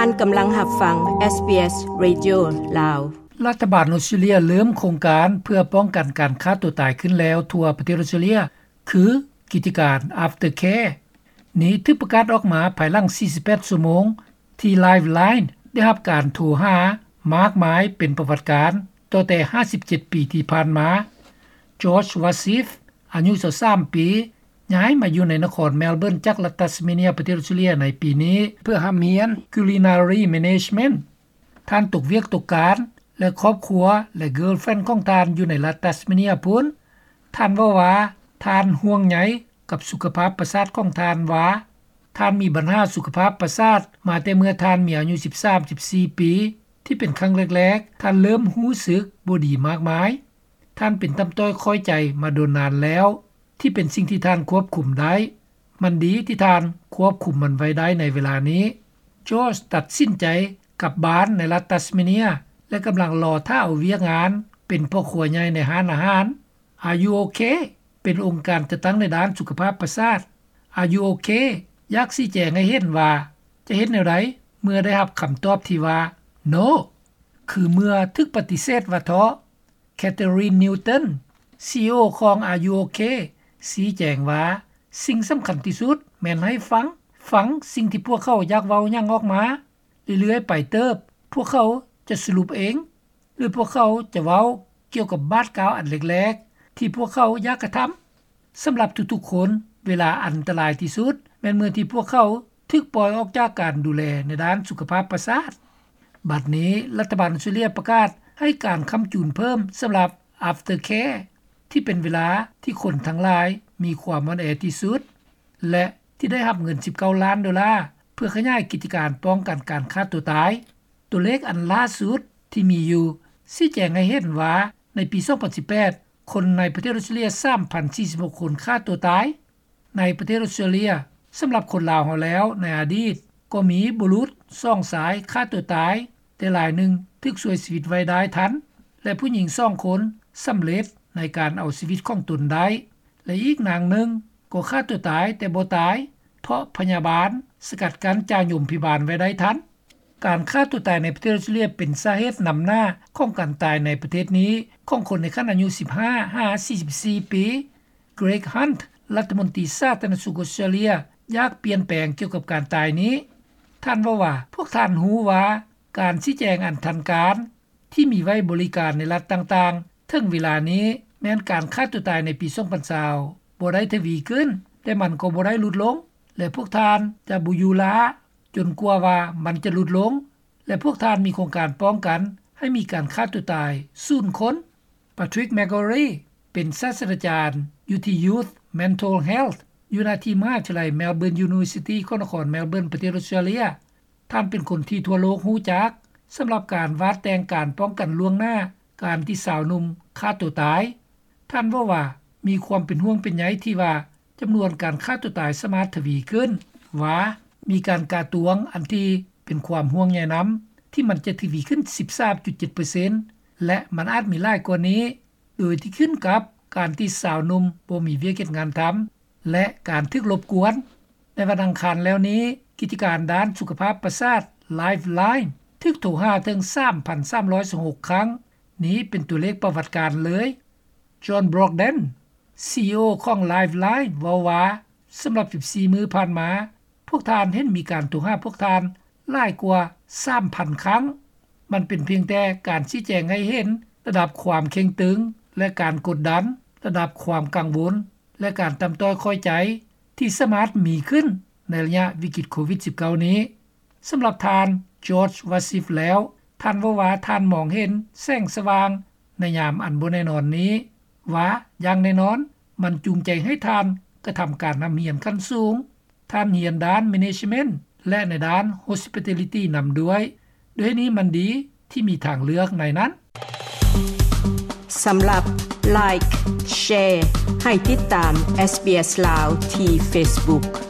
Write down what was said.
ທ່ານກຳລັງຮັບຟັງ ເອສບີເອສ ເຣດິໂອ ລາວ. ລັດຖະບານອົດສະຕຣາເລຍເລີ່ມໂຄງການເພື່ອປ້ອງກັນການຂ້າຕົວຕາຍຂຶ້ນແລ້ວທົ່ວປະເທດອົດສະຕຣາເລຍ ຄືກິດຈະການ Aftercare. ນີ້ຖືກປະກາດອອກມາພາຍຫຼັງສີ່ສິບແປດຊົ່ວໂມງ ທີ່ Lifeline ໄດ້ຮັບການໂທຫາມາກມາຍເປັນປະຫວັດການ ຕໍ່ແຕ່ຫ້າສິບເຈັດປີທີ່ຜ່ານມາ. George Wasif ອາຍຸຊາວສາມປີ ຍ້າຍມາຢູ່ໃນນະຄອນ Melbourne ຈາກລັດ Tasmania ປະເທດ Australia ໃນປີນີ້ ເພື່ອຮ່ຳຮຽນ Culinary Management. ທ່ານຕົກວຽກຕົກການ ແລະ ຄອບຄົວ ແລະ girlfriend ຂອງທ່ານຢູ່ໃນລັດ Tasmania ພຸ້ນ. ທ່ານເວົ້າວ່າ ທ່ານຫ່ວງໃຍກັບສຸຂະພາບປະສາດຂອງທ່ານວ່າ ທ່ານມີບັນຫາສຸຂະພາບປະສາດມາແຕ່ເມື່ອທ່ານມີອາຍຸສິບສາມ ສິບສີ່ປີ ທີ່ເປັນຄັ້ງແລກໆ ທ່ານເລີ່ມຮູ້ສຶກບໍ່ດີມາກມາຍ. ທ່ານເປັນຕ່ຳຕ້ອຍຄ້ອຍໃຈມາດົນນານແລ້ວ ທີ່ເປັນສິ່ງທີ່ທ່ານຄວບຄຸມໄດ້. ມັນດີທີ່ທ່ານຄວບຄຸມມັນໄວ້ໄດ້ໃນເວລານີ້. George ຕັດສິນໃຈກັບບ້ານໃນລັດ Tasmania ແລະ ກຳລັງລໍຖ້າເອົາວຽກງານເປັນພໍ່ຄົວໃຫຍ່ໃນຮ້ານອາຫານ Are You OK? ເປັນອົງການຈັດຕັ້ງໃນດ້ານສຸຂະພາບປະສາດ. Are You OK? ຢາກຊີ້ແຈງໃຫ້ເຫັນວ່າຈະເຮັດແນວໃດເມື່ອໄດ້ຮັບຄຳຕອບທີ່ວ່າ No ຄືເມື່ອຖືກປະຕິເສດວ່າເທາະ. Catherine Newton, ຊີອີໂອ ຂອງ Are You OK? ຊີ້ແຈງວ່າ ສິ່ງສຳຄັນທີ່ສຸດແມ່ນໃຫ້ຟັງ, ຟັງສິ່ງທີ່ພວກເຂົາຢາກເວົ້າຫຍັງອອກມາ. ເລື້ອຍໆໄປເຕີບ ພວກເຂົາຈະສະຫຼຸບເອງ ຫຼື ພວກເຂົາຈະເວົ້າກ່ຽວກັບບາດກ້າວອັນແລກໆ ທີ່ພວກເຂົາຢາກກະທຳ. ສຳລັບທຸກໆຄົນ, ເວລາອັນຕະລາຍທີ່ສຸດ ແມ່ນເມື່ອທີ່ພວກເຂົາຖືກປ່ອຍອອກຈາກການດູແລໃນດ້ານສຸຂະພາບປະສາດ. ບັດນີ້, ລັດຖະບານອົດສະຕຣາເລຍປະກາດໃຫ້ການຄ້ຳຈູນເພີ່ມສຳລັບ Aftercare ທີ່ເປັນເວລາທີ່ຄົນທັງຫຼາຍມີຄວາມອ່ອນແອທີ່ສຸດ ແລະ ທີ່ໄດ້ຮັບເງິນສິບເກົ້າລ້ານໂດລາ ເພື່ອຂະຫຍາຍກິດຈະການປ້ອງກັນການຂ້າຕົວຕາຍ. ຕົວເລກອັນລ່າສຸດທີ່ມີຢູ່ ຊີ້ແຈງໃຫ້ເຫັນວ່າ ໃນປີສອງພັນສິບແປດ ຄົນໃນປະເທດອົດສະຕຣາເລຍສາມພັນສີ່ສິບຫົກຄົນຂ້າຕົວຕາຍ. ໃນປະເທດອົດສະຕຣາເລຍ, ສຳລັບຄົນລາວເຮົາແລ້ວ ໃນອະດີດກໍມີບຸລຸດສອງຊາຍຂ້າຕົວຕາຍ, ແຕ່ລາຍໜຶ່ງຖືກຊ່ວຍຊີວິດໄວ້ໄດ້ທັນ ແລະ ຜູ້ຍິງສອງຄົນສຳເລັດໃນການເອົາຊີວິດຂອງຕົນໄດ້ ແລະ ອີກນາງໜຶ່ງກໍຂ້າຕົວຕາຍແຕ່ບໍ່ຕາຍ ເພາະພະຍາບານສະກັດກັ້ນຈາຍົມພະຍາບານໄວ້ໄດ້ທັນ. ການຂ້າຕົວຕາຍໃນປະເທດອົດສະຕຣາເລຍເປັນສາເຫດນຳໜ້າຂອງການຕາຍໃນປະເທດນີ້ຂອງຄົນໃນຂັ້ນອາຍຸສິບຫ້າຫາສີ່ສິບສີ່ປີ. Greg Hunt ລັດຖະມົນຕີສາທາລະນະສຸກອົດສະຕຣາເລຍ ຢາກປ່ຽນແປງກ່ຽວກັບການຕາຍນີ້. ທ່ານເວົ້າວ່າ ພວກທ່ານຮູ້ວ່າການຊີ້ແຈງອັນທັນການ ທີ່ມີໄວ້ບໍລິການໃນລັດຕ່າງໆ ເຖິງເວລານີ້ ແມ່ນການຂ້າຕົວຕາຍໃນປີສອງພັນຊາວບໍ່ໄດ້ທະວີຂຶ້ນ, ແຕ່ມັນກໍບໍ່ໄດ້ຫຼຸດລົງ ແລະ ພວກທ່ານຈະບໍ່ຢູ່ລ້າຈົນກວ່າວ່າມັນຈະຫຼຸດລົງ ແລະ ພວກທ່ານມີໂຄງການປ້ອງກັນໃຫ້ມີການຂ້າຕົວຕາຍສູນຄົນ. Patrick McGorry ເປັນສາດສະດາຈານຢູ່ທີ່ Youth Mental Health ຢູ່ນະທີ່ມະຫາວິທະຍາໄລ Melbourne University ຂອງນະຄອນ Melbourne ປະເທດອົດສະຕຣາເລຍ. ທ່ານເປັນຄົນທີ່ທົ່ວໂລກຮູ້ຈັກ ສຳລັບການວາດແຕ່ງການປ້ອງກັນລ່ວງໜ້າການທີ່ສາວໜຸ່ມຂ້າຕົວຕາຍ. ທ່ານເວົ້າວ່າ ມີຄວາມເປັນຫ່ວງເປັນໃຍທີ່ວ່າຈຳນວນການຂ້າຕົວຕາຍສາມາດທະວີຂຶ້ນ, ວ່າມີການກາຕວງອັນທີ່ເປັນຄວາມຫ່ວງໃຍນຳ ທີ່ມັນຈະທະວີຂຶ້ນສິບສາມຈຸດເຈັດເປີເຊັນ ແລະ ມັນອາດມີຫຼາຍກວ່ານີ້ ໂດຍທີ່ຂຶ້ນກັບການທີ່ສາວໜຸ່ມບໍ່ມີວຽກເຮັດງານທຳ ແລະ ການຖືກລົບກວນ. ໃນວັນອັງຄານແລ້ວນີ້, ກິດຈະການດ້ານສຸຂະພາບປະສາດ Lifeline ຖືກໂທຫາເຖິງສາມພັນສາມຮ້ອຍຊາວຫົກຄັ້ງ. ນີ້ເປັນຕົວເລກປະຫວັດການເລີຍ. John Brogden, ຊີອີໂອ ຂອງ Lifeline ເວົ້າວ່າ ສຳລັບສິບສີ່ມື້ຜ່ານມາ, ພວກທ່ານເຫັນມີການໂທຫາພວກທ່ານຫຼາຍກວ່າສາມພັນຄັ້ງ. ມັນເປັນພຽງແຕ່ການຊີ້ແຈງໃຫ້ເຫັນລະດັບຄວາມເຄັ່ງຕຶງ ແລະ ການກົດດັນ, ລະດັບຄວາມກັງວົນ ແລະ ການຕ່ຳຕ້ອຍຄ້ອຍໃຈທີ່ສາມາດມີຂຶ້ນໃນໄລຍະວິກິດໂຄວິດສິບເກົ້ານີ້. ສຳລັບທ່ານ George Wasif ແລ້ວ, ທ່ານເວົ້າວ່າທ່ານມອງເຫັນແສງສະຫວ່າງໃນຍາມອັນບໍ່ແນ່ນອນນີ້ ວ່າຢ່າງແນ່ນອນ ມັນຈູງໃຈໃຫ້ທ່ານກະທຳການຮ່ຳຮຽນຂັ້ນສູງ. ທ່ານຮຽນດ້ານ Management ແລະ ໃນດ້ານ Hospitality ນຳດ້ວຍ. ດ້ວຍນີ້ມັນດີທີ່ມີທາງເລືອກໃນນັ້ນ. ສຳລັບ Like, Share ໃຫ້ຕິດຕາມ SBS ລາວ ທີ່ Facebook.